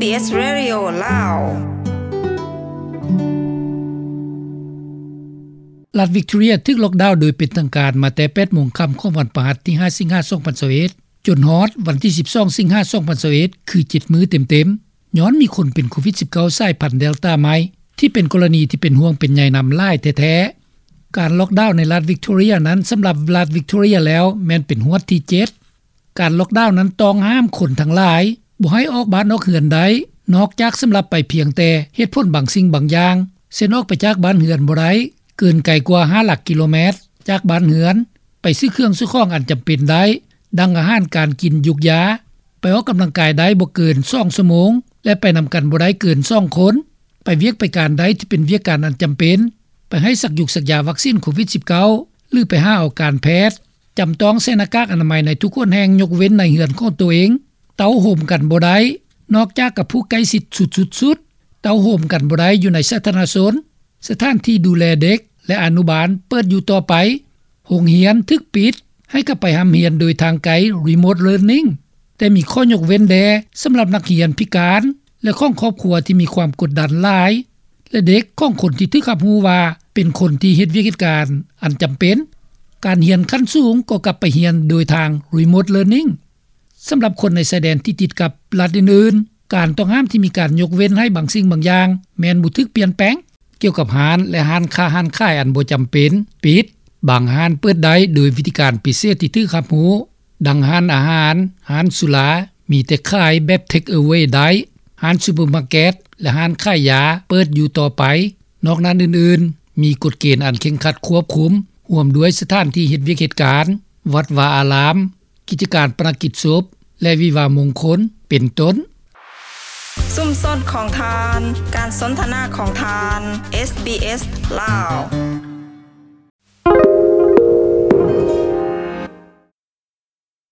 ເອສ Radio ລາວ. ລັດວິກຕໍເຣຍຖືກລັອກດາວໂດຍເປັນທາງການມາແຕ່ ແປດໂມງຄ່ຳຂອງວັນພະຫັດ ທີຫ້າ ສິງຫາ ສອງພັນຊາວເອັດ ຈົນຮອດວັນທີສິບສອງ ສິງຫາ ສອງພັນຊາວເອັດ ຄືເຈັດມື້ເຕັມໆ ຍ້ອນມີຄົນເປັນໂຄວິດສິບເກົ້າ ສາຍພັນເດລຕາໃໝ່ ທີ່ເປັນກໍລະນີທີ່ເປັນຫ່ວງເປັນໃຍນຳຫຼາຍແທ້ໆ. ການລັອກດາວໃນລັດວິກຕໍເຣຍນັ້ນ ສຳລັບລັດວິກຕໍເຣຍແລ້ວ ແມ່ນເປັນຮວດທີເຈັດ. ການລັອກດາວນັ້ນຕ້ອງຫ້າມຄົນທັງຫຼາຍບໍ່ໃຫ້ອອກບ້ານອອກເຮືອນໄດ້ ນອກຈາກສຳລັບໄປພຽງແຕ່ເຫດຜົນບາງສິ່ງບາງຢ່າງ ເຊັ່ນ ອອກໄປຈາກບ້ານເຮືອນບໍ່ໄດ້ເກີນໄກກວ່າຫ້າຫຼັກກິໂລແມັດຈາກບ້ານເຮືອນ, ໄປຊື້ເຄື່ອງຊື້ຂອງອັນຈຳເປັນໄດ້ ດັ່ງອາຫານການກິນ, ຢູກຢາ, ໄປອອກກຳລັງກາຍໄດ້ບໍ່ເກີນສອງຊົ່ວໂມງ ແລະ ໄປນຳກັນບໍ່ໄດ້ເກີນສອງຄົນ, ໄປວຽກໄປການໄດ້ທີ່ເປັນວຽກການອັນຈຳເປັນ, ໄປໃຫ້ສັກຢູກສັກຢາວັກຊີນໂຄວິດສິບເກົ້າ ຫຼື ໄປຫາເອົາການແພດ, ຈຳຕ້ອງໃສ່ໜ້າກາກອະນາໄມໃນທຸກຫົນແຫ່ງ ຍົກເວັ້ນໃນເຮືອນຂອງໂຕເອງ, ເຕົ້າໂຮມກັນບໍ່ໄດ້ ນອກຈາກກັບຜູ້ໃກ້ຊິດສຸດໆ, ເຕົ້າໂຮມກັນບໍ່ໄດ້ຢູ່ໃນສາທາລະນະຊົນ, ສະຖານທີ່ດູແລເດັກ ແລະ ອະນຸບານເປີດຢູ່ຕໍ່ໄປ, ໂຮງຮຽນຖືກປິດ ໃຫ້ກັບໄປຮ່ຳຮຽນໂດຍທາງໄກ Remote Learning ແຕ່ມີຂໍ້ຍົກເວັ້ນແດ່ສຳລັບນັກຮຽນພິການ ແລະ ຂອງຄອບຄົວທີ່ມີຄວາມກົດດັນຫຼາຍ ແລະ ເດັກຂອງຄົນທີ່ຖືກຮັບຮູ້ວ່າເປັນຄົນທີ່ເຮັດວຽກເຮັດການອັນຈຳເປັນ. ການຮຽນຂັ້ນສູງກໍກັບໄປຮຽນໂດຍທາງ Remote Learning. ສຳລັບຄົນໃນຊາຍແດນທີ່ຕິດກັບລັດອື່ນໆ, ການຕ້ອງຫ້າມທີ່ມີການຍົກເວັ້ນໃຫ້ບາງສິ່ງບາງຢ່າງ ແມ່ນບໍ່ຖືກປ່ຽນແປງ. ກ່ຽວກັບຮ້ານ ແລະ ຮ້ານຄ້າຮ້ານຂາຍອັນບໍ່ຈຳເປັນປິດ, ບາງຮ້ານເປີດໄດ້ໂດຍວິທີການພິເສດທີ່ຖືກຮັບຮູ້, ດັ່ງຮ້ານອາຫານ, ຮ້ານສຸລາ ມີແຕ່ຂາຍແບບ Take Away ໄດ້, ຮ້ານຊຸບເປີມາເກັດ ແລະ ຮ້ານຂາຍຢາເປີດຢູ່ຕໍ່ໄປ. ນອກນັ້ນອື່ນໆ ມີກົດເກນອັນເຄັ່ງຄັດຄວບຄຸມ, ຮ່ວມດ້ວຍສະຖານທີ່ເຮັດວຽກເຮັດການ, ວັດວາອາລາມ, ກິດຈະການປະນະກິດສົບ ແລະ ວິວາມງຄົນ ເປັນຕົ້ນ. ຊຸມຊົນຂອງທ່ານ, ການສົນທະນາຂອງທ່ານ, ເອສ ບີ ເອສ ລາວ.